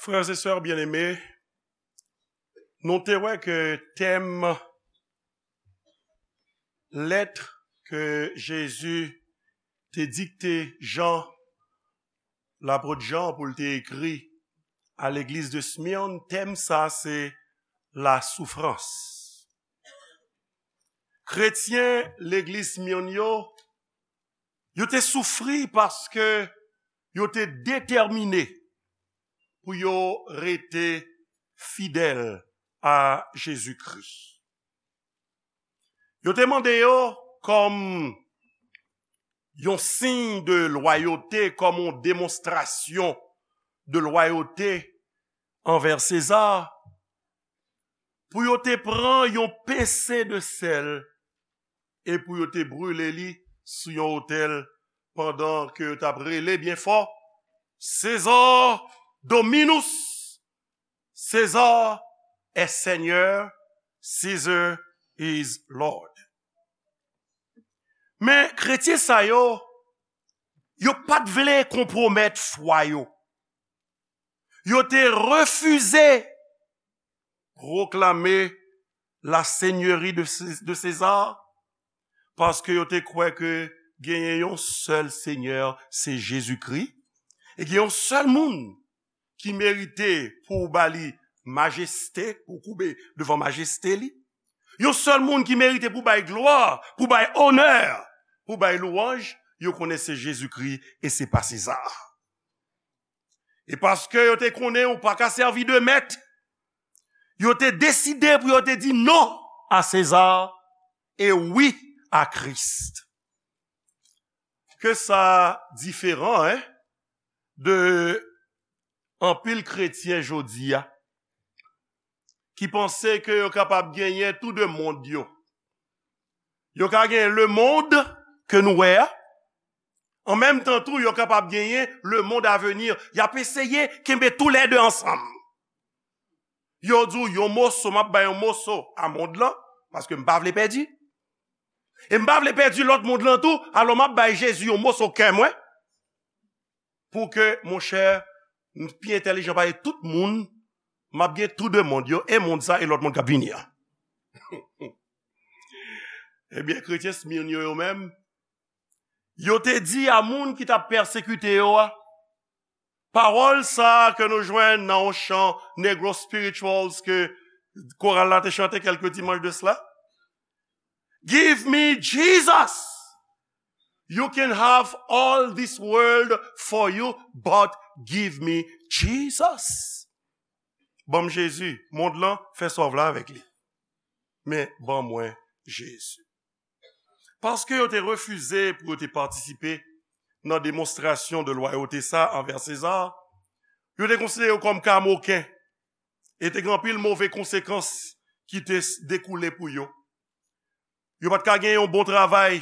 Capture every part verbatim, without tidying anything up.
Frères et sœurs bien-aimés, nou te wè ke tèm lèt ke Jezi te dikte Jan, lapot Jan, pou l te ekri a legliz de Smyrne, tèm sa se la soufrans. Kretyen legliz Smyrne yo, yo te soufri paske yo te detèmine pou yo rete fidèl a Jezikri. Yo te mande yo kòm yon siy de lwayote, kòm yon demonstrasyon de lwayote anvè Seza, pou yo te pran yon pense de sèl e pou yo te brile li sou yon otèl pandan ke yo t ap rele byen fò, César Dominus, César est Seigneur, Caesar is Lord. Men kretyen sa yo, yo pa t vle konpwomèt fwa yo. Yo te refize pwoklame la seigneurie de, Cé- de César, paske yo te kwè ke genyen yon sèl Senyè, se Jezikri, e gen yon sèl moun ki merite pou w ba li majeste, pou w koube devan majeste li. Yon sèl moun ki merite pou w bay glwa, pou w bay onè, pou w bay lwanj, yo konnen se Jezikri e se pa Seza. E paske yo te konnen ou pa ka sèvi de mèt, yo te deside pou yo te di non a Seza e wi a Kris. Ke sa diferan, en, de anpil kretyen jodi a, ki panse ke yo kapab genyen tou de mond yo. Yo ka genyen lemonn ke nou wè a, an menm tan tou, yo kapab genyen lemonn a venir. Y ap eseye kenbe toulède ansanm. Yo di w yon moso, m ap bay yon moso a mond lan, paske m pa vle pèdi. E m pa vle pèdi lòt mond lan tou, alò m ap bay Jezi yon moso kè mwen, pou ke, monchè, m pi entèlijan pase tout moun, m ap gen tou de mond yo, e mond sa e lòt mond k ap vini an. Ebyen, kretyen Smyrne yo, yo menm, yo te di a moun ki t ap pèsekite yo a, pawòl sa a ke nou jwenn nan yon chan Negro Spirituals ke koral la te chante kèlke dimanch de cela. Give me Jesus. You can have all this world for you, but give me Jesus. Ban m Jezi, mond lan, fè sa w vle avèk li. Men ban mwen Jezi. Paske yo te refize pou yo te patisipe nan demonstrasyon de lwayote sa anvè Seza, yo te konsidere yo kòm kamoken, e te gen anpil move konsekans ki te s- dekoule pou yo. Yo pa t ka gen yon bon travay.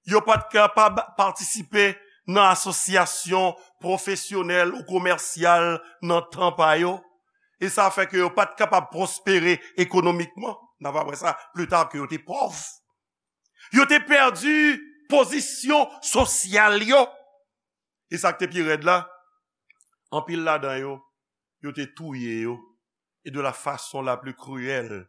Yo pa t kapab patisipe nan asosyasyon pwofesyonèl ou komèsyal nan tan pa yo. E sa fè ke yo pa t kapab pwospere ekonomikman. N a va wè sa pli ta ke yo te pòv. Yo te pèdi pozisyon sosyal yo. E sa k te pi rèd la, anpil ladan yo, yo te touye yo. E de la façon la plus cruelle,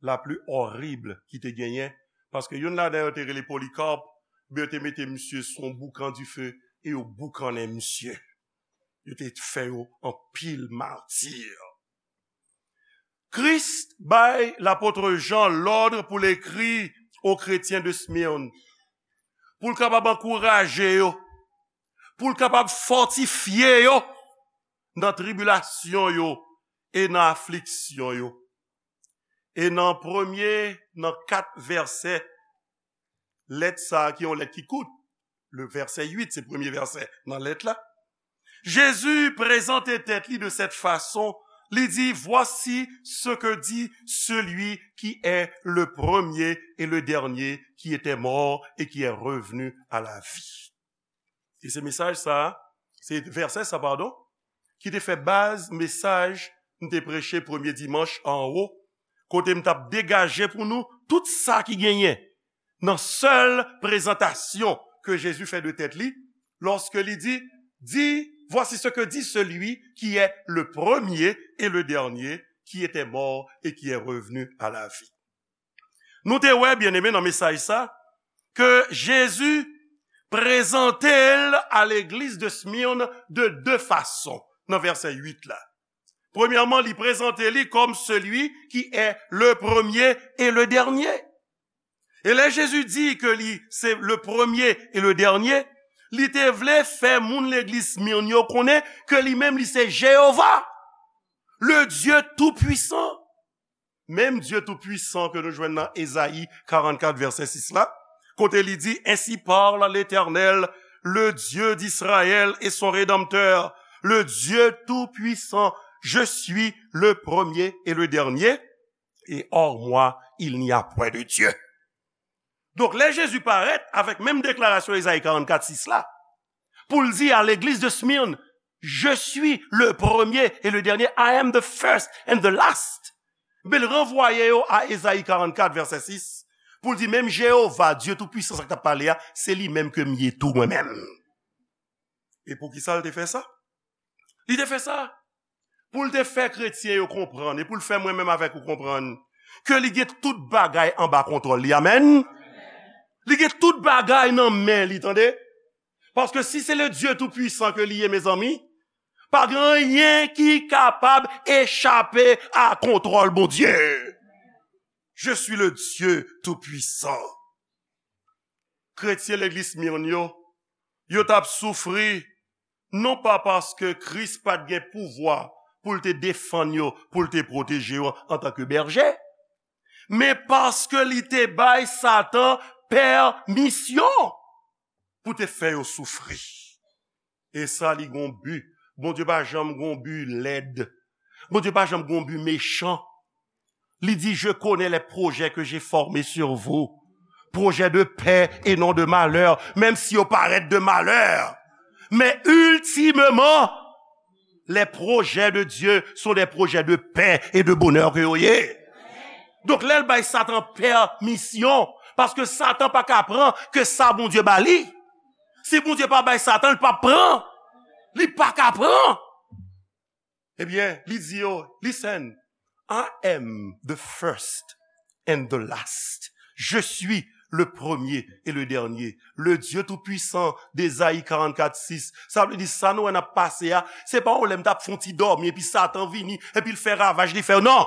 la plus horrible ki te genyen. Paske youn ladan yo te rele Polycarpe, men yo te mete misye sou yon boukan dife e yo boukannen misye. Yo te fè yo anpil mati. Kris bay lapot Jan lòd pou l ekri o kretyen de Smyrne, pou l kapab ankouraje yo, pou l kapab fòtifye yo nan tribilasyon yo e nan afliksyon yo. E nan premye, nan kat vèsè lèt sa a, ki yon lèt ki kout, le vèsè uit, se premye vèsè nan lèt la, Jezi prezante tèt li de cette façon, li di, voici ce que dit celui qui est le premier et le dernier, qui était mort et qui est revenu à la vie. E se mesaj sa, se vèsè sa, padon, ki te fè baz mesaj m te preche premye dimanch anwo, kote m t ap degaje pou nou tout sa ki genyen nan sèl prezantasyon ke Jezi fè de tèt li, lòske li di, di Voici ce que dit celui qui est le premier et le dernier, qui était mort et qui est revenu à la vie. Nou te wè, byeneme, nan mesaj sa, ke Jezi prezante l a legliz de Smyrne de de fason, nan vèsè uit la. Premyèman, li prezante li kòm celui qui est le premier et le dernier. E lè Jezi di ke li se le premier et le dernier, li te vle fè moun legliz Smyrne yo konnen ke li menm li se Jewova, le Dieu Tout-Puissant. Menm Dye Toupisan ke nou jwenn nan Ezayi karannkat vèsè sis la, kote li di, Ainsi parle l'Éternel, le Dieu d'Israël et son Rédempteur, le Dieu Tout-Puissant, je suis le premier et le dernier, et hors moi, il n'y a point de Dieu. Donk, lè Jezi parèt avèk menm deklarasyon Ezayi karannkat sis la, pou l di a legliz de Smyrne, Je suis le premier et le dernier, I am the first and the last. Men l ranvwaye yo a Ezayi karannkat vèsè sis, pou l di menm Jewova, Dye Toupisan, sa k t ap pale a, se li menm ke m ye tou mwen menm. E poukisa l te fè sa? Li te fè sa pou l te fè kretyen yo konprann, e pou l fè mwen menm avèk ou konprann, ke li gen tout bagay anba kontwòl li. Amèn? Li gen tout bagay nan men li, tande? Paske si se le Dieu Tout-Puissant ke li ye, mezanmi, pa gen anyen ki kapab echape a kontwòl Bondye. Je suis le Dieu Tout-Puissant. Kretyen legliz Smyrne yo, yo t ap soufri, non pa paske Kris pa t gen pouvwa pou l te defann yo, pou l te pwoteje yo antanke bèje, men paske li te bay Satan pèmisyon pou te fè yo soufri. E sa, li gon bi. Bondye pa janm gon bi lèd. Bondye pa janm gon bi mechan. Li di, Je connais les projets que j'ai formés sur vous, projets de paix et non de malheur, menm si yo parèt de malè. Men iltimeman, les projets de Dieu sont des projets de paix et de bonheur ke yo ye. Donk, lè l bay Satan pèmisyon, paske Satan pa ka pran ke sa Bondye ba li. Si Bondye pa bay Satan, li p ap pran. Li pa ka pran. Ebyen, li di yo, Listen, I am the first and the last. Je suis le premier et le dernier. Le Dieu Tout-Puissant, Ezayi karannkat sis. Sa vle di, sa nou wè n ap pase a, se pa yon lè m t ap fè yon ti dòmi, epi Satan vini, epi l fè ravaj, li fè, non!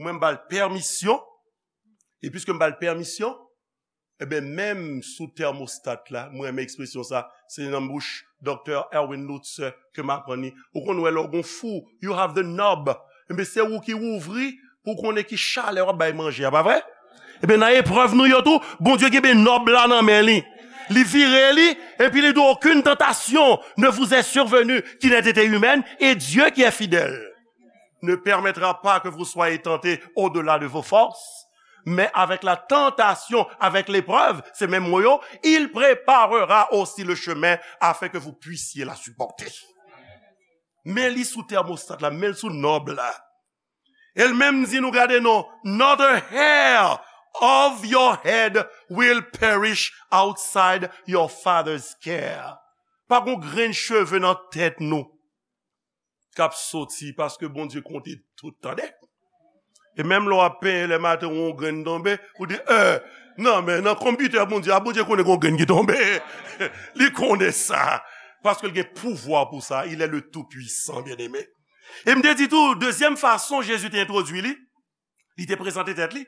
Mwen, m ba l pèmisyon, e piske m ba l pèmisyon, ebyen, menm sou tèmostat la, mwen renmen ekspresyon sa, se nan bouch Doktè Erwin Lutzer ke m aprann li. Ou konn wè lè w gon fou, you have the knob. Ebyen, se ou ki ouvri pou w konnen ki chalè w ap bay manje a, pa vre? Ebyen, nan eprèv nou yo tou, Bondye kenbe nòb la nan men li. Li vire li, epi li di, Aucune tentation ne vous est survenue qui n'ait été humaine, et Dieu qui est fidèle ne permettra pas que vous soyez tentés au-delà de vos forces, mais avec la tentation, avec l'épreuve, se menm mo yo, il préparera aussi le chemin afin que vous puissiez la supporter. Men li sou tèmostat la, men l sou nòb la. E l menm di nou, gade non, Not a hair of your head will perish outside your Father's care. Pa gon grenn cheve nan tèt nou k ap soti, paske Bondye konte tout, tande. E menm lè w ap penyen lè maten, yon grenn tonbe, ou di, eh, non, men nan konpitè Bondye a, Bondye konnen gon grenn ki tonbe. Li konnen sa. Paske l gen pouvwa pou sa. Il est le Tout-Puissant, byeneme. E m te di tou, dezyèm fason Jezi te entwodui li, li te prezante tèt li,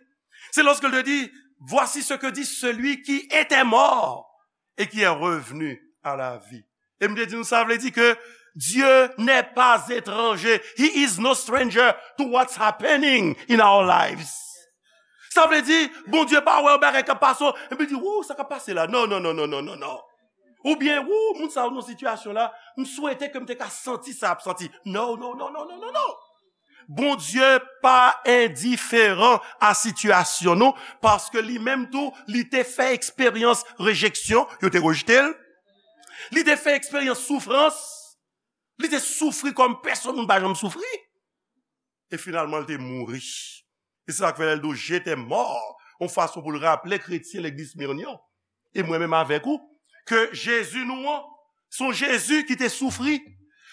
se lòske l te di, Voici ce que dit celui qui était mort et qui est revenu à la vie. E m te di nou, sa vle di ke Dieu n'est pas étranger. He is no stranger to what's happening in our lives. Sa vle di, Bondye pa wè yon bagay k ap pase, epi di, Wou, sa k ap pase la? Non, non, non, non, non, non, non. Oubyen, Wou, moun sa yo nan sitiyasyon la, m swete ke m te ka santi sa ap santi. Non, non, non, non, non, non, non. Bondye pa endiferan a sitiyasyon nou, paske li menm tou, li te fè eksperyans rejeksyon, yo te rejte l. Li te fè eksperyans soufrans. Li te soufri kòm pèsonn moun pa janm soufri. E finalman, li te mouri. E se sa k fè lè l di w, J'étais mort, yon fason pou l raple kretyen legliz Smyrne yo, e mwen menm avèk ou, ke Jezi nou an, Se yon Jezi ki te soufri.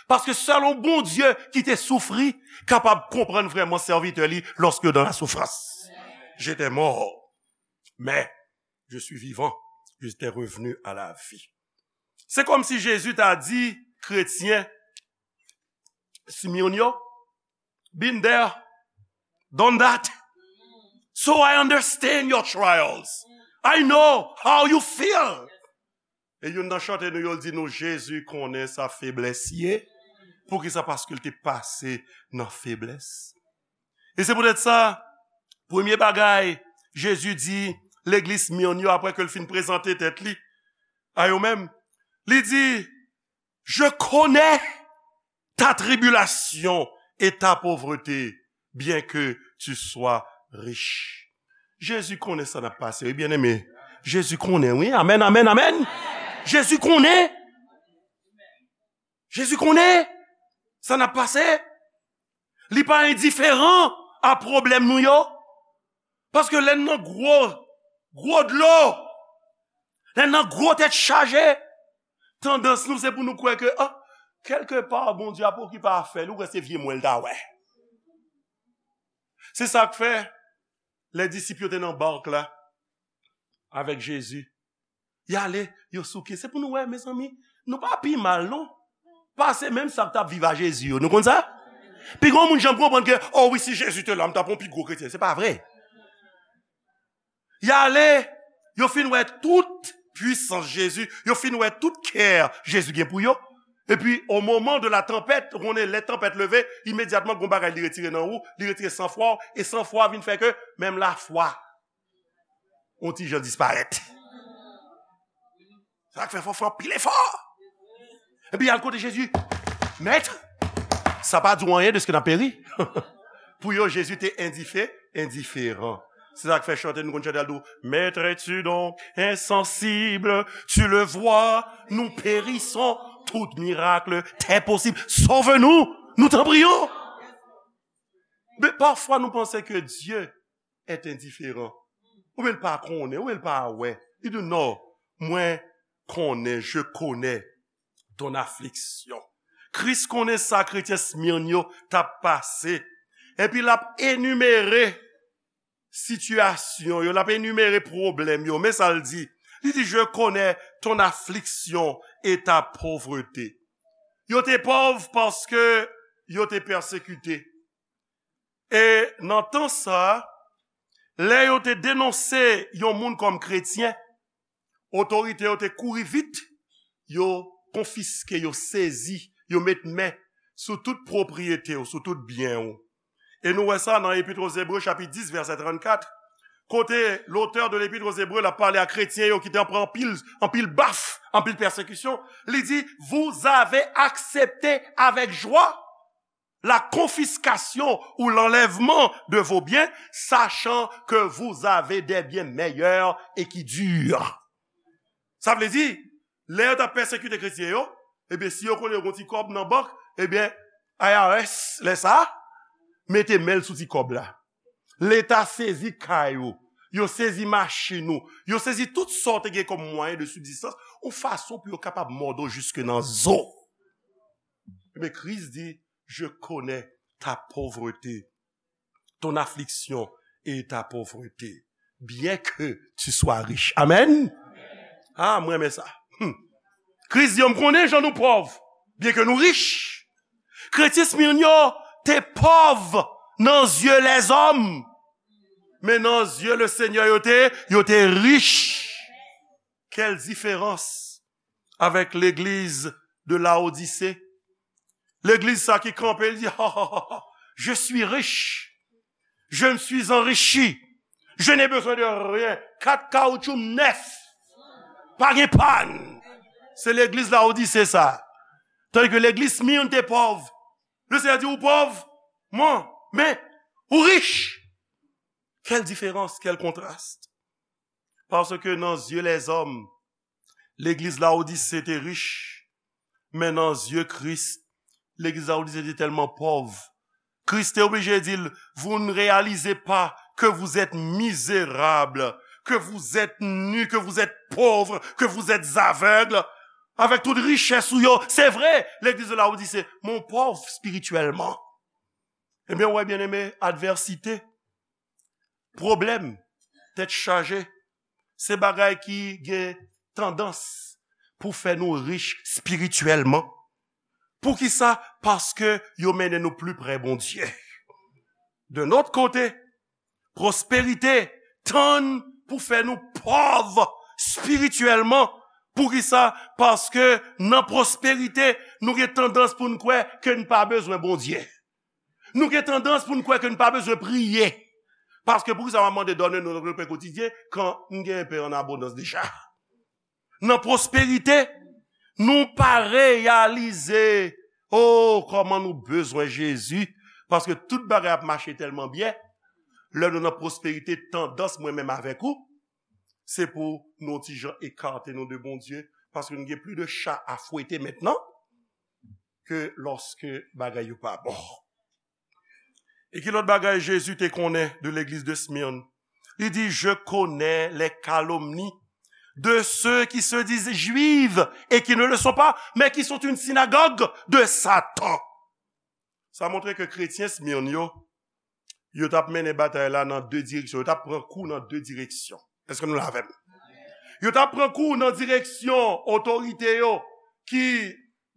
Paske sèl yon Bondye ki te soufri kapab konprann vrèman sèvitè li lorsque dans la souffrance. J'étais mort, mais je suis vivant, j'étais revenu à la vie. Se kòmsi Jezi ta di kretyen Smyrne yo, been there, done that. So I understand your trials. I know how you feel. E youn nan chante nou yo di nou, Jezi konnen sa feblès ye. Poukisa? Paske l te pase nan feblès. E se poutèt sa, premye bagay Jezi di legliz Smyrne yo, apre ke l fin prezante tèt li a yo menm, li di, Je connais ta tribulation et ta pauvreté, bien que tu sois riche. Jezi konnen sa n ap pase, wi, byeneme. Jezi konnen, wi. Amèn, amèn, amèn. Jezi konnen. Jezi konnen sa n ap pase. Li pa endiferan a pwoblèm nou yo. Paske lè n nan gwo, gwo dlo, lè n nan gwo tèt chaje, tandans nou se pou nou kwè ke, ah, kèlke pa Bondye ap okipe afè li, ou kwè se vye mwen l ta wè. Se sa k fè, lè disip yo te nan bak la, avèk Jezi, y ale, yo souke. Se pou nou wè, mezanmi, nou pa pi mal, non. Pase menm sa k t ap viv a Jezi yo. Nou konn sa? Pi gon moun janm konprann ke, oh wi, si Jezi te la, m t ap yon pi gwo kretyen. Se pa vre. Y ale, yo fin wè tout pwisans Jezi, yo fin wè tout kè Jezi gen pou yo. Epi, au moment de la tempête, ou konnen lè tanpèt leve, imedyatman, gon bagay li retire nan ou, li retire sanfwa w, e sanfwa vin fè ke menm lafwa yon ti jan disparèt. Sa k fè fò fè anpil efò. Epi y al kote Jezi, Mèt, sa pa di w anyen de ce que n ap peri? Pou yo, Jezi te endife, endiferan. Se sa k fè chante, nou konn chante al di w, Maître, es-tu donc insensible? Tu le vois, nous périssons. Tout miracle t'est possible. Sauve-nous, nous t'en prions. Men pafwa nou panse ke Dye est indifférent. Oubyen l pa konnen, oubyen l pa wè. Li di, non, mwen konnen, je connais ton affliction. Kris konnen sa kretyen Smyrne yo t ap pase. Epi l ap enimere sitiyasyon yo, l ap enimere pwoblèm yo. Men sa l di. Li di, je connais ton affliction et ta pauvreté. Yo te pòv paske yo te pèsekite. E nan tan sa a, lè yo te denonse yon moun kòm kretyen, otorite yo te kouri vit, yo konfiske, yo sezi, yo met men sou tout pwopriyete w, sou tout byen w. E nou wè sa nan Epit aux Hébreux, chapit dis, vèsè trannkat, kote lotè de Epit aux Hébreux la pale a kretyen yo ki te pran anpil, anpil baf, anpil pèsekisyon. Li di, vous avez accepté avec joie la confiscation ou l'enlèvement de vos biens, sachant que vous avez des biens meilleurs et qui durent. Sa vle di, lè yo t ap pèsekite kretyen yo, ebyen, si yo konnen yo gon ti kòb nan bank, ebyen, I R S, lè sa a, mete men l sou ti kòb la. Leta sezi kay ou, yo sezi machin ou, yo sezi tout sa w te gen kòm mwayen de sibzistans, yon fason pou yo kapab mòde w jiske nan zo. Men Kris di, je connais ta pauvreté, ton affliction et ta pauvreté, bien que tu sois riche. Amen. Ah, mwen renmen sa. Hmm. Kris di, yo, m konnen jan nou pòv, byen ke nou rich. Kretyen Smyrne yo te pòv nan zye lèzòm, men nan zye le Seigneur yo te, yo te rich. Quelle différence avec l'église de Laodicée. Legliz sa ki kanpe, li di, ha, ha, ha, ha, je suis riche, je me suis enrichi, je n'ai besoin de rien. Kat kawoutchou nèf, pa gen pàn. Se legliz Laodise sa. Tandis que legliz Smyrne te pòv. Le Seigneur di, ou pòv, mwen, men, ou rich. Quelle différence, quel contraste. Paske nan zye lèzòm, legliz Laodise te rich, men nan zye Kris, legliz Laodise te tèlman pòv. Kris te oblije di l, vous ne réalisez pas que vous êtes misérables, que vous êtes nus, que vous êtes pauvres, que vous êtes aveugles. Avèk tout richès ou yo, se vre, legliz de la ou di se mon pòv espirityèlman. Ebyen, ou wè, byeneme, advèsite, pwoblèm, tèt chaje, se bagay ki gen tandans pou fè nou rich espirityèlman. Poukisa? Paske yo mennen nou pli pre Bondye. De nòt kote, pwosperite tann pou fè nou pòv espirityèlman. Poukisa? Paske nan pwosperite, nou gen tandans pou n kwè ke n pa bezwen Bondye. Nou gen tandans pou n kwè ke n pa bezwen priye. Paske poukisa m ap mande done nou nan pen kotidyen kan m gen pen an abondans deja? Nan pwosperite, nou pa reyalize, oh, kòman nou bezwen Jezi, paske tout bagay ap mache tèlman byen. Lè nou nan pwosperite, tandans mwen menm avèk ou, se pou nou ti jan ekate nou de Bondye, paske nou gen plis de cha a fwete mentnan ke lòske bagay yo pa bon. E ki lòt bagay Jezi te konnen de legliz de Smyrne? Li di, je connais les calomnies de ceux qui se disent juifs et qui ne le sont pas, mais qui sont une synagogue de Satan. Sa montre ke kretyen Smyrne yo, yo t ap mennen batay la nan de direksyon. Yo t ap pran kou nan de direksyon. Èske nou la avè m? Yo t ap pran kou nan direksyon otorite yo, ki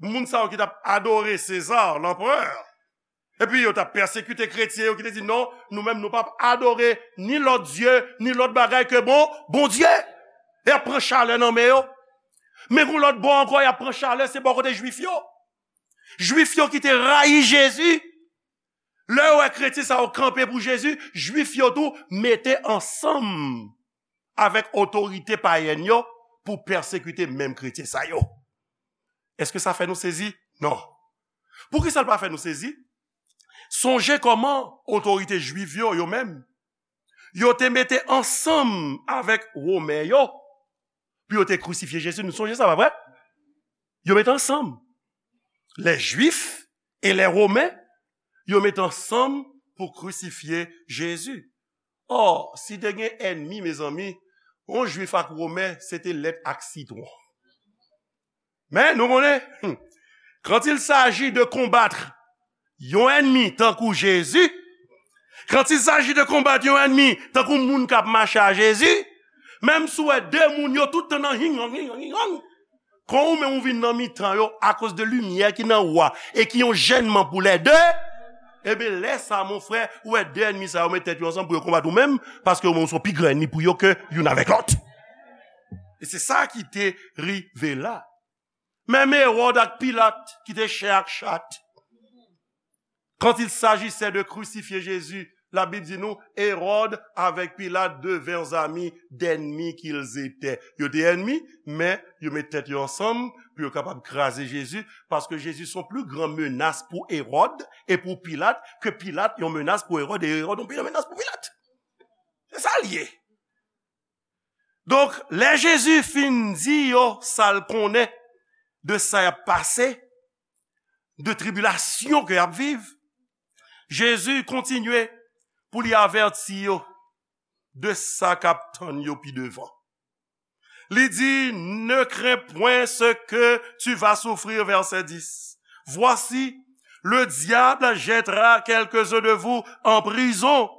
moun sa yo ki t ap adore Seza, lanperè. Epi yo t ap pèsekite kretyen yo ki te di, non, nou menm nou p ap adore ni lòt dye, ni lòt bagay ke bon, Bondye. E y ap pran chalè nan men yo. Men gon lòt bò ankò, y ap pran chalè, se bò kote Jwif yo. Jwif yo ki te rayi Jezi. Lè yo wè kretyen sa yo kanpe pou Jezi, Jwif yo tou mete ansanm avèk otorite payèn yo pou pèsekite menm kretyen sa yo. Èske sa fè nou sezi? Non. Poukisa l pa fè nou sezi? Sonje kòman otorite jwif yo, yo menm, yo te mete ansanm avèk Women yo pou yo te krisifye Jezi. Nou sonje sa, pa vre? Yo mete ansanm. Les Juifs et les Romains, yo mete ansanm pou krisifye Jezi. Ò, si te gen ènmi, mezanmi, yon Jwif ak Women, se te lèt ak sitwon. Men, nou konnen, hmm, quand il s'agit de combattre yon ènmi tankou Jezi, quand il s'agit de combattre yon ènmi tankou moun k ap mache a Jezi, menm si w wè de moun yo tout tan nan hing hang, hing hang, hing hang, kan ou menm ou vin nan mitan yo, akoz de limyè ki nan ou a, e ki yon jènman pou lè de, ebyen, lè sa, mon frè, ou wè de ènmi sa yo met tèt yo ansanm pou yo konbat ou menm, paske ou menm ou se yon pi gran ènmi pou yo ke youn avèk lòt. E se sa ki te rive la. Menm Ewòd ak Pilat ki te chen ak chat. Quand il s'agissait de crucifier Jésus, Labib di nou, Ewòd avèk Pilat devinrent amis d'ennemis qu'ils étaient. Yo te ènmi, men yo met tèt yo ansanm pou yo kapab kraze Jezi, paske Jezi se yon pli gran menas pou Ewòd e pou Pilat ke Pilat yon menas pou Ewòd e Ewòd yon pli gran menas pou Pilat. Se sa l ye. Donk, lè Jezi fin di yo sa l konnen de sa y ap pase, de tribilasyon ke y ap viv, Jezi kontinye pou li avèti yo de sa k ap tann yo pi devan. Li di, ne crains point ce que tu vas souffrir, verset dix. Voici, le diable jettera quelques-uns de vous en prison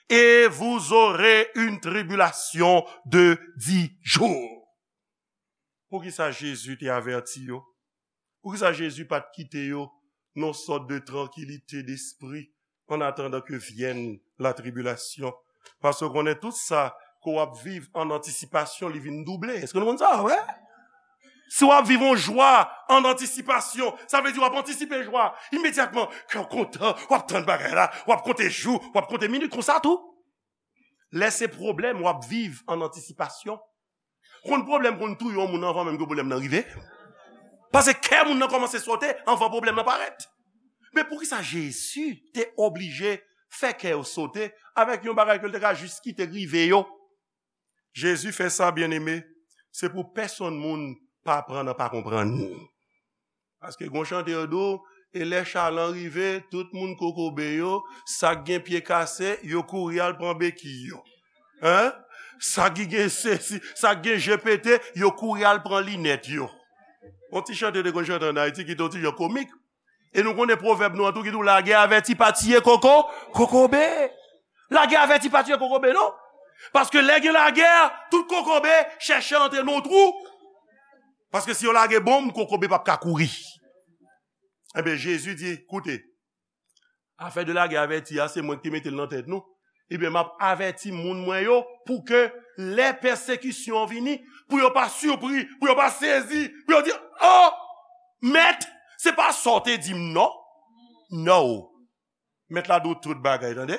et vous aurez une tribulation de dix jours. Poukisa Jezi te avèti yo? Poukisa Jezi pa t kite yo nan yon sòt de trankilite despri en attendant que vienne la tribulation? Paske w konnen tout sa ke w ap viv an antisipasyon, li vin double. Èske nou konn sa, wi? Si w ap viv yon jwa an antisipasyon, sa vle di w ap antisipe jwa. Imedyatman, kè w kontan, w ap tann bagay la, w ap konte jou, w ap konte minit, konsa tou. Lè se pwoblèm, w ap viv an antisipasyon. Konn pwoblèm konn touye yon moun anvan menm ke pwoblèm nan rive. Paske kè moun nan kòmanse sote anvan pwoblèm nan parèt. Men poukisa Jezi te oblije fè kè yo sote avèk yon bagay ke l te ka jis kite rive yo? Jezi fè sa, byeneme, se pou pèsonn moun pa pran nan pa konprann. Paske gon chante yo di w, e lè chalan rive, tout moun kokobe yo, sa k gen pye kase, yo kouri al pran beki yo. Hein? Sa ki gen sesi, sa k gen je pete, yo kouri al pran linèt yo. Yon ti chante yo te konn chante ann Ayiti ki te yon ti jan komik. E nou konnen pwovèb nou an tou ki di w lagè avèti pa tiye koko, kokobe. Lagè avèti pa tiye kokobe, non. Paske lè gen lagè, tout kokobe chèche antre nan yon twou. Paske si yo lage bonm, kokobe p ap ka kouri. Ebyen, Jezi di, koute, afè de lagè avèti a, se mwen ki te mete l nan tèt nou. Ebyen, m ap avèti moun mwen yo pou ke lè pèsekisyon an vini, pou yo pa sipri, pou yo pa sezi, pou yo di, oh, mèt, se pa sa w te di m, non. No. Mèt la di w tout bagay, tande?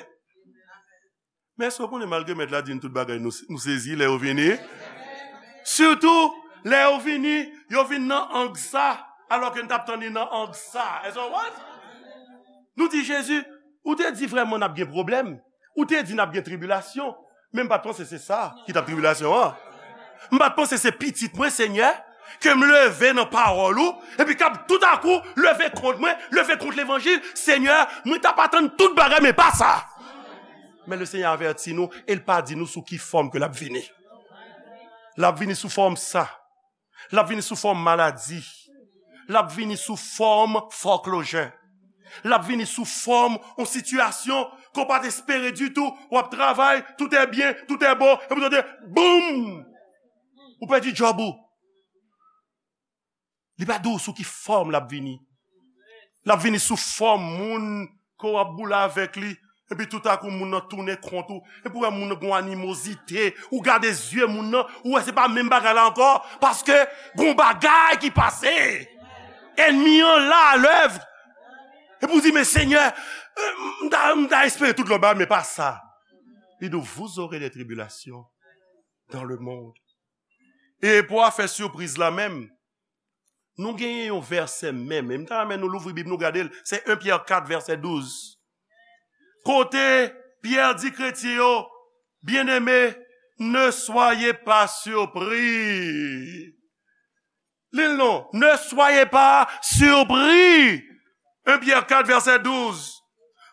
Men èske w konnen malgre mèt la di n tout bagay, nou, nou sezi lè yo vini? Sitou, lè yo vini, yo vin nan ang sa, alòske n t ap tann li nan ang sa. Èske w konprann? Nou di, Jezi, ou te di vrèman n ap gen pwoblèm. Ou te di n ap gen tribilasyon. Men m pa t panse se sa ki t ap tribilasyon an. M pa t panse se pitit mwen, Senyè, ke m leve nan pawòl ou, epi k ap toutakou leve kont mwen, leve kont levanjil. Senyè, mwen t ap atann tout bagay, men pa sa. Men Lesenyè avèti nou, e l pa di nou sou ki fòm ke l ap vini. L ap vini sou fòm sa. L ap vini sou fòm maladi. L ap vini sou fòm foreclosure. L ap vini sou fòm yon sitiyasyon ke w pa t espere ditou. W ap travay, tout est bien, tout est beau, epi w tande, boum! Ou pèdi djòb ou. Li pa di w sou ki fòm l ap vini. L ap vini sou fòm moun ke w ap boule avèk li. Epi toutakou moun nan tounen kont ou. Epi w wè moun nan gen yon animozite. Ou gade zye moun nan, ou wè se pa menm bagay la ankò. Paske gen yon bagay ki pase. Ènmi an la, alèv. Epi w di, men Senyè, euh, m ta, m ta espere tout lòt bagay, men pa sa. Li di w, vous aurez des tribulations dans le monde. E pou afè sipriz la menm, nou genyen yon vèsè menm. E m ta renmen nou louvri Bib nou gade l. Se en Pyè kat vèsè douz. Kote Pyè di kretyen yo, byeneme, ne soyez pas surpris. Li l non, ne soyez pas surpris. En Pyè kat vèsè douz.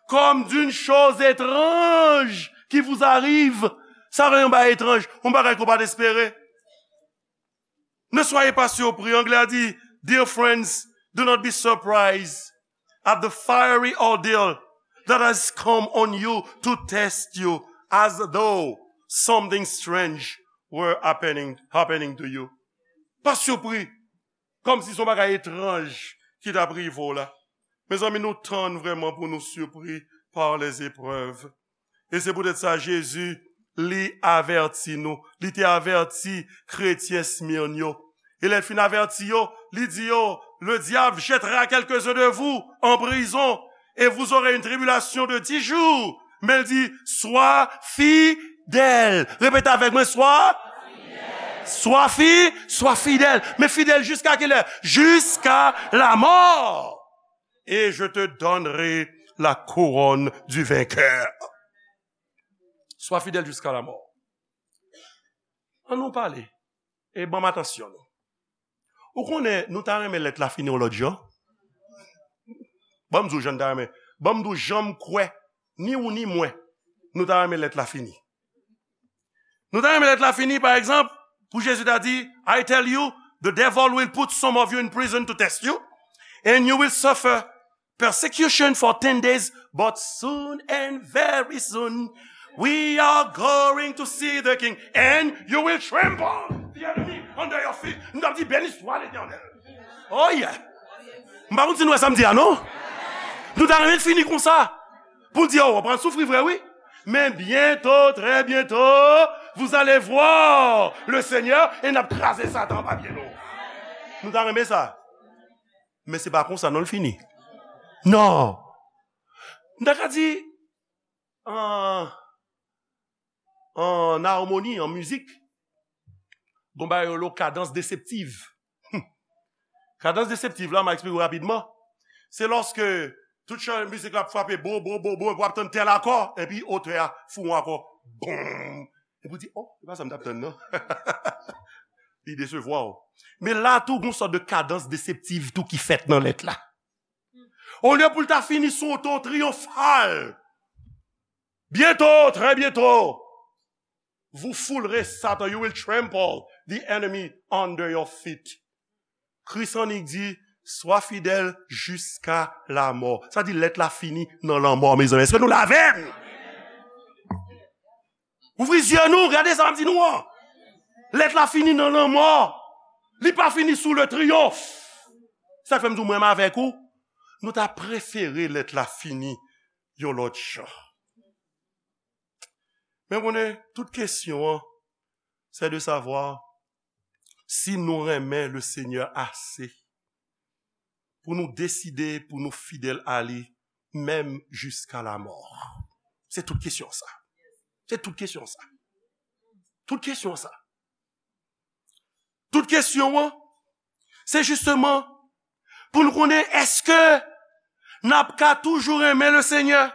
Comme d'une chose étrange qui vous arrive. Sa vle yon bagay etranj, yon bagay ke w pa t espere. Ne soyez pas surpris. Anglè a di, dear friends, do not be surprised at the fiery ordeal that has come on you to test you as though something strange were happening, happening to you. Pa sipri, kòmsi se yon bagay etranj ki t ap rive w la. Mezanmi, nou tann vrèman pou nou sipri par les épreuves. E se poutèt sa, Jezi, li avèti nou. Li te avèti kretyen Smirn yo. E lè l fin avèti yo, li di yo, le diable jettera quelques-uns de vous en prison, et vous aurez une tribulation de dix jours. Men l di, sois fidèle. Repete avèk mwen, sois, sois fi, sois fidèle. Men fidèle jusqu'à quelle heure? Jusqu'à la mort. Et je te donnerai la couronne du vainqueur. Sois fidèle jusqu'à la mort. An nou pale. E ban m atansyon nou. Ou konnen, nou ta renmen lèt la fini yon lòt jan. Ban m di w jan n ta renmen. Ban m di w jan m kwè, ni ou ni mwen, nou ta renmen lèt la fini. Nou ta renmen lèt la fini, pa egzanp, pou Jezi ta di, I tell you, the devil will put some of you in prison to test you, and you will suffer persecution for ten days, but soon and very soon, we are going to see the king, and you will trample the enemy under your feet. Nou t ap di, bèl istwa, Letènèl. Oh yeah. M pa konn si nou wè sa m di a, non? Nou ta renmen l fini konsa. Pou l di, oh, w ap pral soufri vre, wi. Men bientôt, très bientôt, vous allez voir le Seigneur, e n ap kraze Satan anba pye nou. Nou ta renmen sa. Men se pa konsa non l fini. Non. M ta ka di, an, an armoni, an mizik, gon bagay yo rele kadans deseptiv. Hmm. Kadans deseptiv la, m a eksplike w rapidman. Se lòske tout chan mizik la ap frape bo, bo, bo, bo, w ap tann tèl akò, epi otè a fè yon akò. Bonm. Epi w di, oh, se pa sa m t ap tann, non. Li desevwa w. Men la tou, gon sòt de kadans deseptiv tou ki fèt nan lèt la. Olye pou l ta fini sou yon ton triyonfal. Bientôt, très bientôt, vous foulerez Satan, you will trample the enemy under your feet. Kris annik di, swa fidèl jiska lamò. Sa di lèt la fini nan lanmò, mezanmi. Èske nou la avè m? Ouvri zye nou, gade sa m di nou an. Lèt la fini nan lanmò. Li pa fini sou le triyonf. Sa k fè m di w mwen avèk ou, nou ta prefere lèt la fini yon lòt jan. Men konnen, tout kesyon an, c'est de savoir si nou renmen le Seigneur ase pou nou deside pou nou fidèl a li, menm jiska lamò. Se tout kesyon sa. Se tout kesyon sa. Tout kesyon sa. Tout kesyon an, se jisteman pou nou konnen èske n ap ka toujou renmen le Seigneur,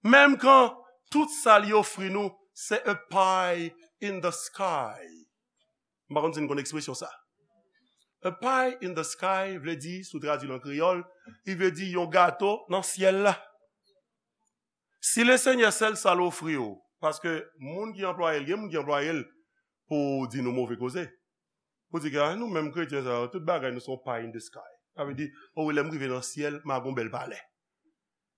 menm kan tout sa li ofri nou, se a pie in the sky. M pa konn si n konn ekspresyon sa. A pie in the sky vle di, si w tradui l an kreyòl, li vle di yon gato nan syèl la. Si le Senyè sèl sa l ofri w, paske moun ki anplwaye l, gen moun ki anplwaye l pou di nou move koze. Pou di ke, "Ah, nou menm kretyen sa yo, tout bagay nou se yon pie in the sky." Sa vle di, "Oh, lè m rive nan syèl, m a gon bèl palè."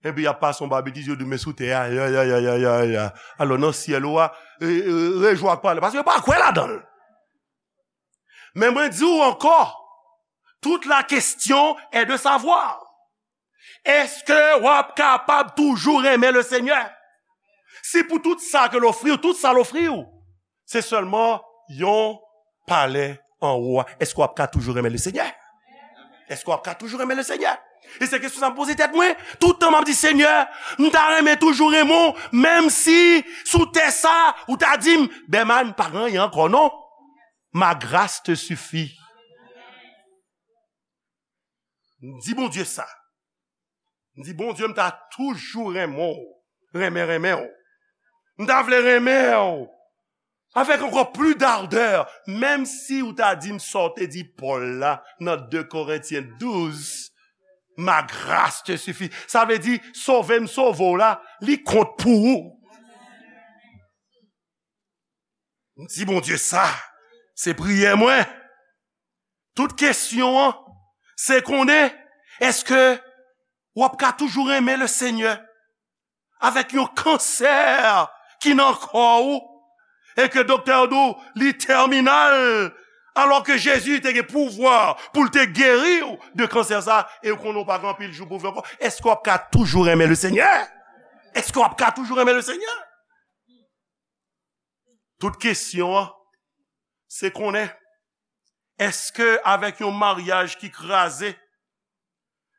Epi y ap pase yon babetiz, yo di, "Men sou tè a, ya, ya, ya, ya, ya, ya." Alò, nan syèl ou a, e, e, rejwi ak palè, paske yo pa kwè ladan l. Men mwen di w ankò, toute la question est de savoir, èske w ap kapab toujou renmen le Senyè? Si pou tout sa ke l ofri w, tout sa l ofri w, se sèlman yon palè anwo a, èske w ap ka toujou renmen le Senyè? Èske w ap ka toujou renmen le Senyè? E se kesyon sa m poze tèt mwen. Toutan m ap di, "Senyè, m ta renmen toujou renmen w, menm si sou tè sa, ou ta di m, 'Bèman, pa gen anyen ankò non. Ma grâce te suffit.'" M di Bondye sa. M di, "Bondye, m ta toujou renmen w, renmen, renmen w. M ta vle renmen w avèk ankò plis d'ardè, menm si w ta di m sa w te di Pòl la nan de Korentyen douz, 'Ma grâce te suffit.'" Sa vle di, sove m sove w la, li kont pou ou. M di Bondye sa, se priyè mwen. Tout kesyon an, se konnen, èske w ap ka toujou renmen le Senyè avèk yon kansè ki nan kò w, e ke doktè yo di w li tèminal, alò ke Jezi te gen pouvwa pou l te geri w de kansè sa, e w konnen w pa gen anpil jou pou w viv ankò? Èske w ap ka toujou renmen le Senyè? Èske w ap ka toujou renmen le Senyè? Tout kesyon an, se konnen, èske avèk yon maryaj ki kraze,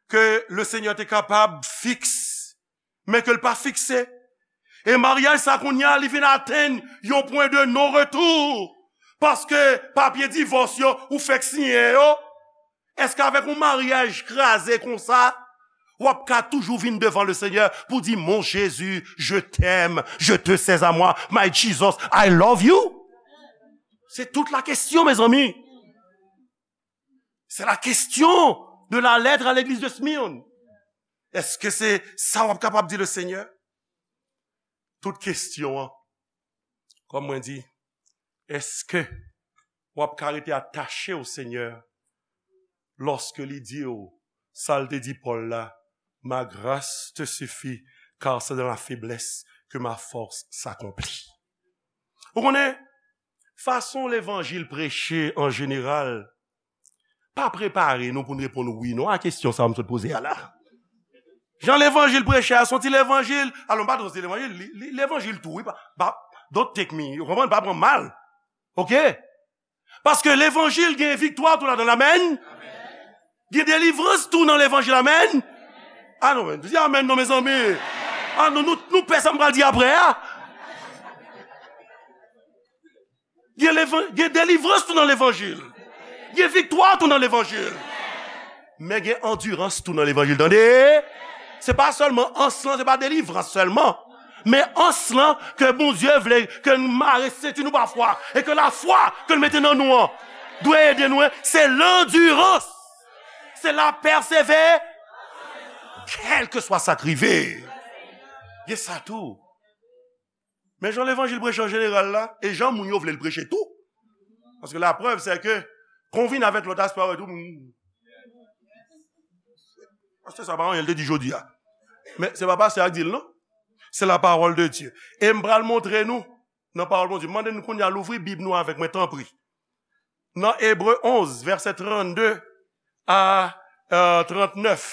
ke le Senyè te kapab fiks, men ke l pa fikse, e maryaj sa kounye a, li vin atenn yon pwen de non retou, paske papye divòs yo, ou fèk siyen yo, èske avèk yon maryaj kraze konsa, w ap ka toujou vin devan le Senyè pou di, "Mon Jésus, je t'aime, je te sais à moi, my Jesus, I love you"? Se tout la kesyon, mezanmi. Se la kesyon de la lèt a legliz de Smyrne. Èske se sa w ap kapab di le Senyè? Tout kesyon an, kòm mwen di, èske w ap ka rete atache o Senyè lòske li di w sa l te di Pòl la, "Ma grâce te suffit, car c'est dans la faiblesse que ma force s'accomplit"? Ou konnen, fason levanjil preche an jeneral, pa prepare nou pou n reponn wi non a kesyon sa a m sot poze a la. Jan levanjil preche a, se yon ti levanjil, alò, m pa di se levanjil, li, li, levanjil tou, wi, pa, pa, don't take me, ou konprann, pa pran m mal. Oke? Paske levanjil gen viktwa tou ladan l, amèn. Gen delivrans tou nan levanjil, amèn. Ah non, men, di amèn non, mezanmi. Ah non, nou, nou pè sa m pral di apre a. Gen levan-, gen delivrans tou nan levanjil. Gen viktwa tou nan levanjil. Men gen andirans tou nan levanjil, tande? Se pa sèlman ans lan, se pa delivrans sèlman. Men ans lan ke Bondye vle ke n mare senti nou pafwa, e ke lafwa ke l mete nan nou an dwe ede nou, se landirans, se la pèsevè, kèlkeswa sa k rive. Gen sa tou. Men jan levanjil preche an jeneral la, e jan moun yo vle l preche tou. Paske laprèv, se ke Konvin avèk lòt aspè a, wè tou. Pastè sa pa anyen, l te di jodi a. Men se pa pastè a k di l, non. Se la parole de Dieu. E m pral montre nou, nan pawòl Bondye. M mande nou kounye a louvri Bib nou avèk mwen, tanpri. Nan Ebre onz, vèsè trannde a, euh, trannèf.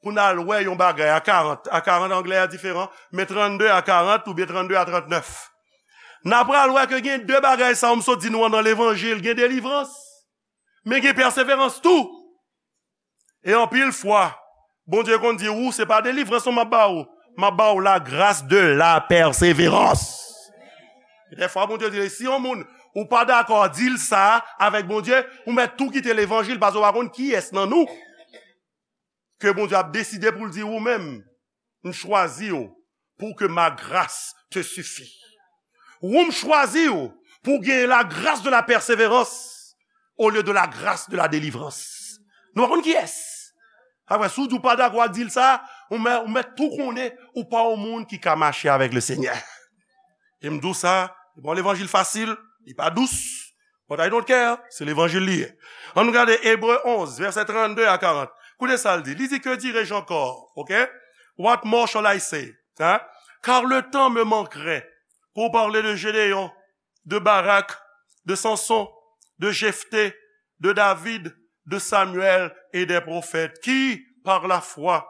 Pou n al wè yon bagay a karant. A karant anglè a diferan, men trannde a karant oubyen trannde a trannèf. N a pral wè ke gen de bagay sa yo m sot di nou an nan levanjil. Gen delivrans, men gen pèseverans tou. E anpil fwa, Bondye konn di, ou, se pa delivrans non m ap ba ou. M ap ba ou la grâce de la persévérance. Dèfwa, Bondye di, si yon moun, ou pa dakò, di l sa avèk Bondye, ou mèt tou kite levanjil, paske ou pa konn kiyès nan nou ke Bondye ap deside pou l di ou menm, m chwazi w pour que ma grâce te suffit. Ou m chwazi w pou w gen la grâce de la persévérance au lieu de la grâce de la délivrance. Nou pa konn kiyès. Apre, si w di w pa dakò ak di l sa, ou mèt, ou mèt tou konnen ou pa yon moun ki ka mache avèk le Senyè. E m di w sa, se pa yon levanjil fasil, li pa dous. But I don't care, se levanjil li ye. Ann nou gade Ebre onz, vèsè trannde a karant. Koute sa l di. Li di, que dirai-je encore? Ok? What more shall I say? Hein? Car le temps me manquerait pour parler de Gédéon, de Barak, de Samson, de Jephthé, de David, de Samuel et des prophètes qui, par la foi,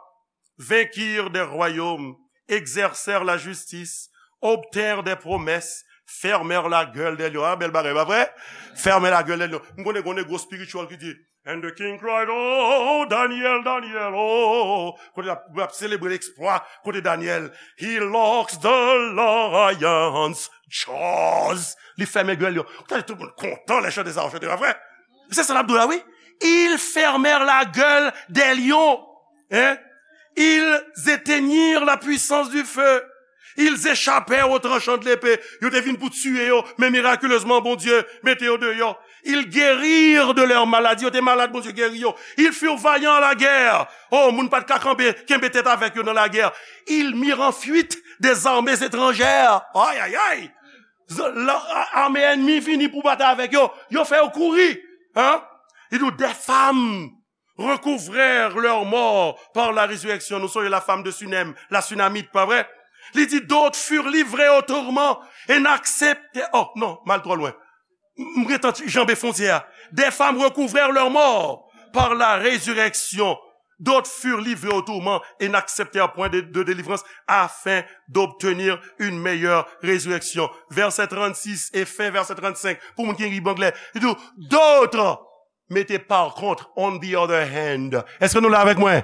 vainquirent des royaumes, exercèrent la justice, obtinrent des promesses, fermèrent la gueule des lions. Ah, bèl bagay, pa vre? Fermèrent la gueule des lions. M konnen, konnen gwo spiritual ki di, and the king cried, oh, Daniel, Daniel, oh. Kote l ap, l ap selebre eksplwa, kote Daniel, he locks the lions' jaws. Li fèmen gèl yo. Ou tande tout moun kontan lè chante sa, chante, pa vre? Se sa l ap di w la, wi. Ils fermèrent la gueule des lions. Hein? Ils éteignirent la puissance du feu. Ils échappèrent au tranchant de l'épée. Yo te vin pou tiye yo, men miraculezman, Bondye mete yo deyò. Ils guérirent de leurs maladies. Yo te malad, Bondye geri yo. Ils furent vaillants à la guerre. Oh, moun pa t ka kanpe, kenbe tèt avèk yo nan lagè. Ils mirent en fuite des armées étrangères. Ay, ay, ay! Z-, la, a-, ame ènmi vini pou batay avèk yo. Yo fè yo kouri. Hein? Li di w, des femmes recouvrèrent leurs morts par la résurrection. Nou sonje la femme de Sunem, la Sunamite, pa vre? Li di, d'autres furent livrés au tourment et n'acceptèrent, oh, non, m al twò lwen. M gentan janbe fwontyè a. Des femmes recouvrèrent leurs morts par la résurrection. D'autres furent livrés au tourment et n'acceptèrent point de, de délivrance afin d'obtenir une meilleure résurrection. Vèsè trannsis e fen vèsè trannsenk. Pou moun ki gen Bib anglè, li di, d'autres, mete par contre, on the other hand. Èske nou la avèk mwen?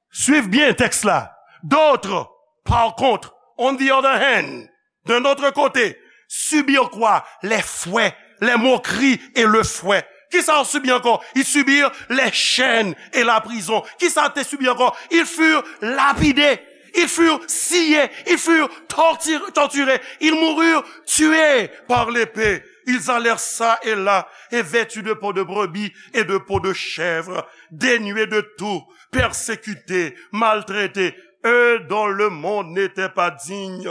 Swiv byen tèks la. D'autres, par contre, on the other hand, d'un autre côté, subirent quoi? Les fouets, les moqueries et le fouet. Kisa yo sibi ankò? Ils subirent les chaînes et la prison. Kisa yo te sibi ankò? Ils furent lapidés, ils furent sciés, ils furent torti-, torturés, ils moururent tués par l'épée. Ils allèrent çà et là, et vêtus de peau de brebis et de peau de chèvre, dénués de tout, persécutés, maltraités, eux dont le monde n'était pas digne,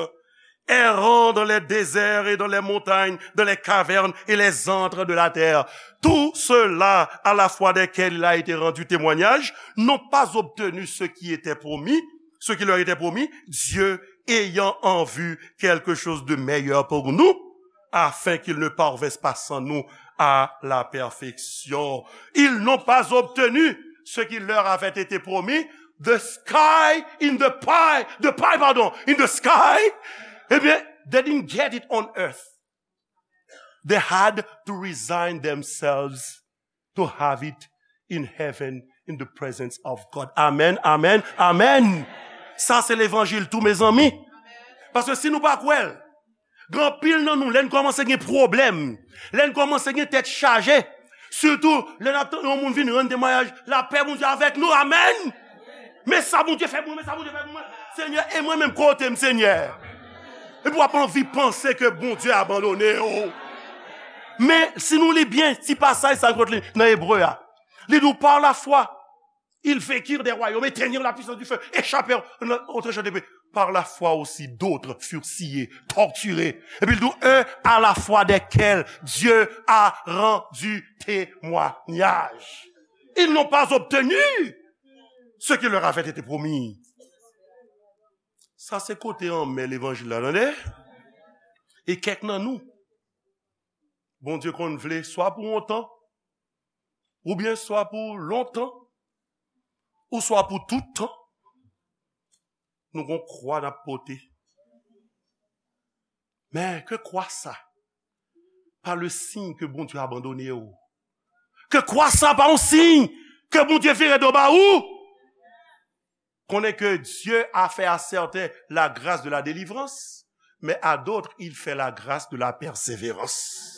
errant dans les déserts et dans les montagnes, dans les cavernes et les antres de la terre. Tous ceux-là, à la foi desquels il a été rendu témoignage, n'ont pas obtenu ce qui était promis, ce qui leur était promis, Dieu ayant en vue quelque chose de meilleur pour nous, afin qu'ils ne parvinssent pas sans nous à la perfection. Ils n'ont pas obtenu ce qui leur avait été promis. The sky in the pie, the pie, pardon, in the sky. Eh bien, they didn't get it on earth. They had to resign themselves to have it in heaven, in the presence of God. Amen, amen, amen. Sa se levanjil tou, mezanmi. Paske si nou pa kwè l, gen anpil nan nou, lè n kòmanse gen pwoblèm, lè n kòmanse gen tèt chaje, sitou lè n ap tann yon moun vin rann temwayaj, lapè Bondye avèk nou, amèn. Men sa Bondye fè pou mwen, men sa Bondye fè pou mwen. Senyè, e mwen menm, kote m, Senyè? Epi w ap anvi panse ke Bondye abandone w. Men, si nou li byen ti pasaj sa kot li nan Ebre a, li di w, par la foi, ils vainquirent des royaumes, éteignirent la puissance du feu, échappèrent au tranchant de l'épée. par la foi aussi d'autres furent sciés, torturés. Et puis il dit, eux à la foi desquels Dieu a rendu témoignage. Ils n'ont pas obtenu ce qui leur avait été promis. Sa se kote anmè levanjil la, tande? E kèk nan nou, Bondye konn vle swa pou yon tan, oubyen swa pou lontan, ou swa pou tout tan, nou gon kwa n ap pote. Men ke kwa sa pa le siy ke Bondye abandone w. Ke kwa sa pa yon siy ke Bondye vire do ba ou. Konnen ke Dieu a fait à certains la grâce de la délivrance, mais à d'autres, il fait la grâce de la persévérance.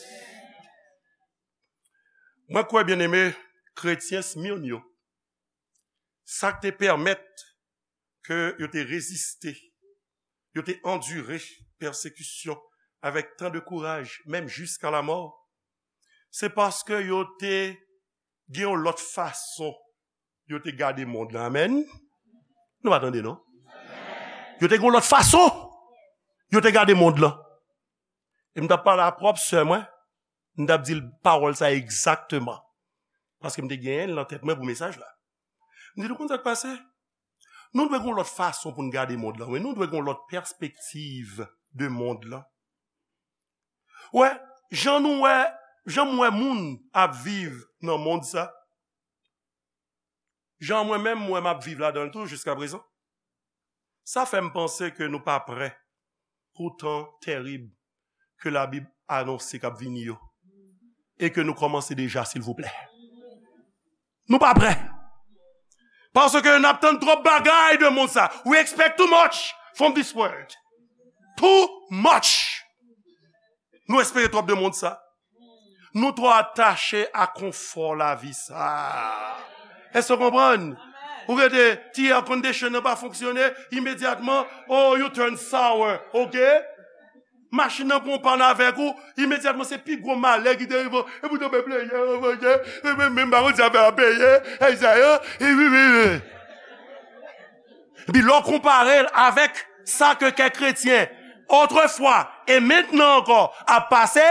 Mwen kwè, byeneme, kretyen Smyrne yo, sa k te pèmèt ke yo te reziste, yo te andire pèsekisyon avèk tan de kouraj, menm jiska lamò, se paske yo te gen yon lòt fason yo te gade mond lan. Amèn. Nou pa tande, non? Yo te gen yon lòt fason yo te gade mond lan. E m t ap pale a pwòp sè mwen, m t ap di l pawòl sa egzakteman. Paske m te genyen l nan tèt mwen pou mesaj la. M di l, ou konn sa k pase? Nou dwe gen yon lòt fason pou n gade mond lan. Wi, nou dwe gen yon lòt pèspektiv de mond lan. Wè, jan nou wè, jan m wè moun ap viv nan mond sa, jan mwen menm, mwen, m ap viv ladan l tou jiska prezan, sa fè m panse ke nou pa prè pou tan tèrib ke Labib anonse k ap vini yo, e ke nou kòmanse deja, silvouplè. Nou pa prè. Paske n ap tann twòp bagay de mond sa. We expect too much from this world. Too much. Nou espere twòp de mond sa. Nou twò atache a konfò lavi sa. Èske w konprann? Ou rete, ti air condition nan pa fonksyone, imedyatman, oh, you turn sour, ok? Machin nan pran w pann avèk ou, imedyatman se pi gwo malè ki te rive w. Epi w tonbe pleye, pleye, epi menm pa konn si afè a peye, e sa yo, e wi, wi, wi. Epi lè w konpare l avèk sa ke kèk kretyen, otrefwa e mentnan ankò, ap pase,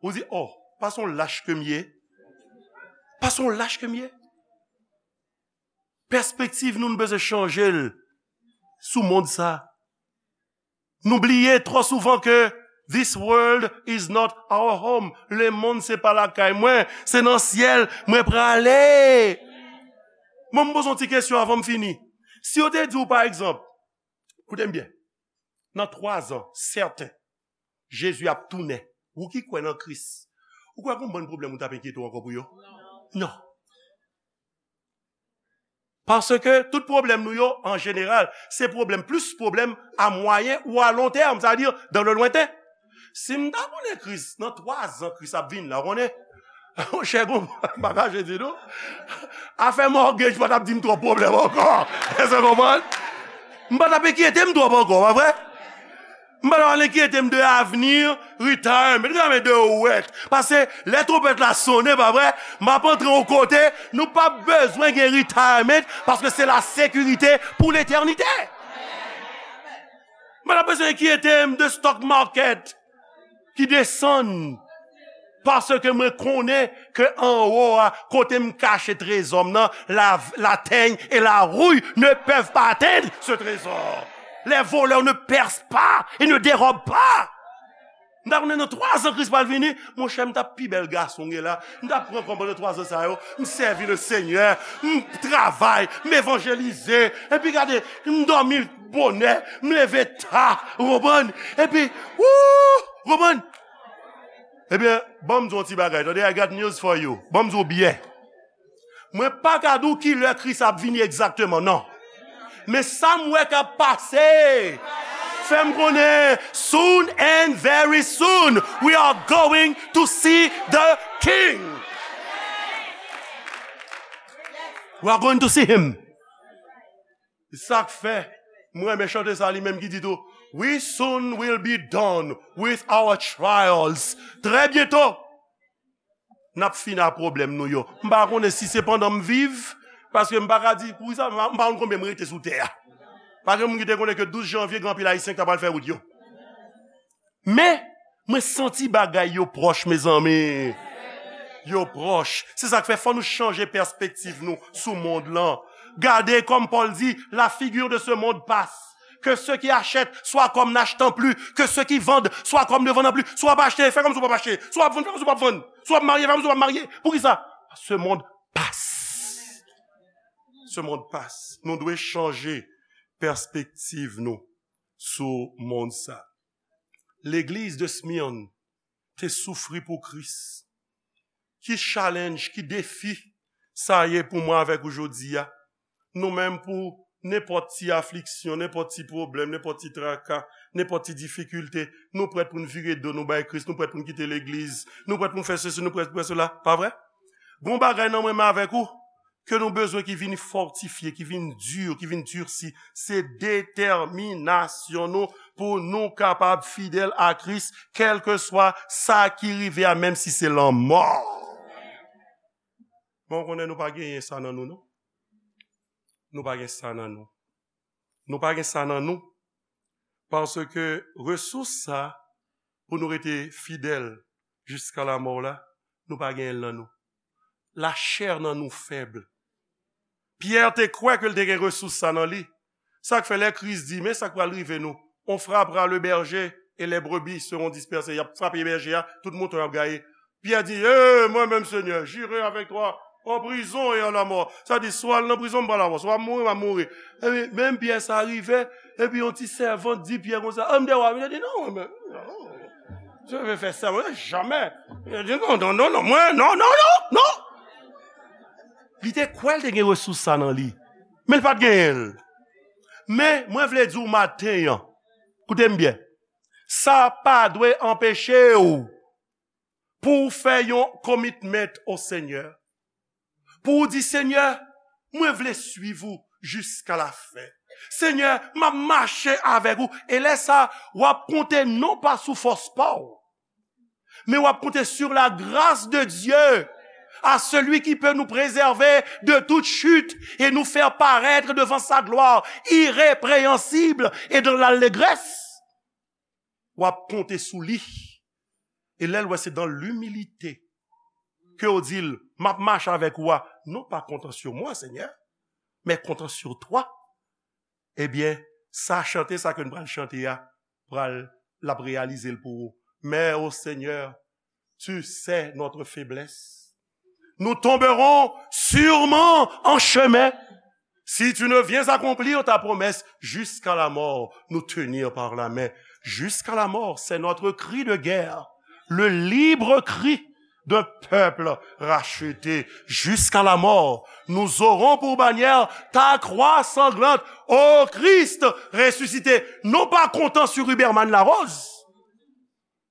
ou di, oh, pa se yon lach ke m ye. Pa se yon lach ke m ye. Pèspektiv nou, nou bezwen chanje l sou mond sa. Nou bliye twò souvan ke this world is not our home. Lemonn se pa lakay mwen, se nan syèl mwen prale. Mwen, m poze yon ti kesyon avan m fini. Si yo te di w, pa egzanp, koute m byen, nan twa zan, sèten, Jezi ap tounen, ou ki kwè nan Kris, ou kwè gon bann pwoblèm ou t ap enkyete w ankò pou yo? Non. Paske tout pwoblèm nou yo, an jeneral, se pwoblèm, plis pwoblèm a mwayen ou a lon tèm, sa vle di, dans le lointain. Si m ta konnen Kris, nan twa zan Kris ap vin la, ou konnen, monchè, gon, m pa kache di nou, afè mortgage pa t ap di m twòp pwoblèm ankò. Èske w konprann? M pa t ap enkyete m twòp ankò, pa vre? M pa t ap enkyete m de avni, retirement, m ta men de wèt. Paske lè twonpèt la sonnen, pa vre, m ap antre yon kote, nou p ap bezwen gen retirement, paske se la sekirite pou letènite. M pa t ap bezwen enkyete m de stock market ki desann. Paske mwen konnen ke anwo a, kote m kache trezò m nan, la, la teigne et la rouille ne peuvent pas atteindre ce trésor. Les voleurs ne percent pas et ne dérobent pas. M ta konnen nan twa zan Kris pral vini, monchè, m t ap pi bèl gason gen la. M t ap pran kòb pandan twa zan sa yo, m sèvi le Senyè, m travay, m evanjelize. Epi gade, m dòmi bonè, m leve ta, ou konprann? Epi, wou, ou konprann? Ebyen, ban m di w yon ti bagay, tande, I got news for you. Ban m di w byen. Mwen pa ka di w ki lè Kris ap vini egzakteman, non. Men sa m wè k ap pase, fè m konnen, soon and very soon, we are going to see the King. We are going to see him. Se sa k fè, mwen renmen chante sa li menm ki di tou, we soon will be done with our trials. Trè byento, n ap fini ak pwoblèm nou yo. M pa konnen si se pandan m viv, paske m pa ka di, poukisa, m pa, m pa konn konbyen m rete sou tè a. Pa gen moun ki te konnen ke douz janvye gen anpil Ayisyen ki ta pral fè wout yo. Men, mwen santi bagay yo pwòch, mezanmi. Yo pwòch. Se sa k fè fò nou chanje pèspektiv nou sou mond lan. Gade, comme Paul dit, la figure de ce monde passe. Que ceux qui achètent soient comme n'achetant plus, que ceux qui vendent soient comme ne vendant plus. Si w ap achte, fè kòmsi w p ap achte. Si w ap vann, fè kòmsi w p ap vann. Si w ap marye, fè kòmsi w p ap marye. Poukisa? Ce monde passe. Ce monde passe. Nou dwe chanje pèspektiv nou sou mond sa. Legliz de Smyrne te soufri pou Kris. Ki challenge, ki defi sa ye pou mwen avèk ou jodi a? Nou menm, pou nenpòt ti afliksyon, nenpòt ti pwoblèm, nenpòt ti traka, nenpòt ti difikilte, nou prèt pou n vire do nou bay Kris, nou prèt pou n kite legliz, nou prèt pou n fè sesi, nou prèt pou n fè sela, pa vre? Gon bagay nan mwen menm avèk ou, ke nou bezwen ki vin fòtifye, ki vin di, ki vin dirsi, se detèminasyon nou pou nou kapab fidèl a Kris, kèlkeswa sa ki rive a, menm si se lanmò. Bon, konnen nou pa genyen sa nan nou, non. Nou pa gen sa nan nou. Nou pa gen sa nan nou. Paske resous sa, pou nou rete fidèl jiska lamò la, nou pa genyen l nan nou. Lachè nan nou fèb. Pyè te kwè ke l te gen resous sa nan li. Sa k fè lè Kris di, men sa k pral rive nou. On frappera le berger et les brebis seront dispersées. Y ap frape bèje a, tout mouton y ap gaye. Pyè di, e, mwen menm, Senyè, j'irai avec toi en prison et en la mort. Sa di, swa l nan prizon, m pral avè w, swa m mouri, m ap mouri. Epi, menm Pyè sa rive, epi yon ti sèvant di Pyè konsa, a, m dèyè w, li di, non, mwen menm, non. Je vais faire ça, mwen, jamè. Li di, non, non, non, non, mwen, non, non, non, non. Li te kwè l te gen resous sa nan li, men l pa t genyen l. Men, mwen vle di w maten an, koute m byen, sa pa dwe anpeche w pou w fè yon commitment au Seigneur, pou w di, Senyè, mwen vle swiv ou jiska lafen. Senyè, m ap mache avèk ou. E lè sa, w ap konte non pa sou fòs pa w, men w ap konte sur la grâce de Dieu, à celui qui peut nous préserver de toute chute et nous faire paraître devant sa gloire irrépréhensible et dans l'allégresse. W ap konte sou li. E lè l wè se dans l'humilité ke w di l, m ap mache avèk ou a, non pas comptant sur moi, Seigneur, mais comptant sur toi. Ebyen, sa chante sa ke n pral chante a, pral, l ap reyalize l pou ou. Mais, ô Seigneur, tu sais notre faiblesse. Nous tomberons sûrement en chemin. Si tu ne viens accomplir ta promesse, jusqu'à la mort, nous tenir par la main. Jusqu'à la mort, c'est notre cri de guerre. Le libre cri d'un peuple racheté. Jusqu'à la mort, nous aurons pour bannière ta croix sanglante, ô Christ ressuscité. Non pas comptant sur Huberman Larose,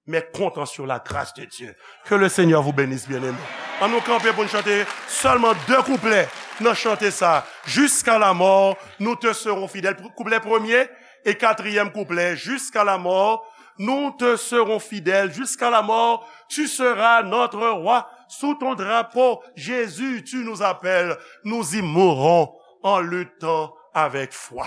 mais comptant sur la grâce de Dieu. Que le Seigneur vous bénisse, bien-aimés. An nou kanpe pou n chante sèlman de kouplè nan chante sa. Jusqu'à la mort, nous te serons fidèles. Kouplè premye e katriyèm kouplè. Jusqu'à la mort, nous te serons fidèles. Jusqu'à la mort, tu seras notre roi. Sous ton drapeau, Jésus, tu nous appelles. Nous y mourrons en luttant avec foi.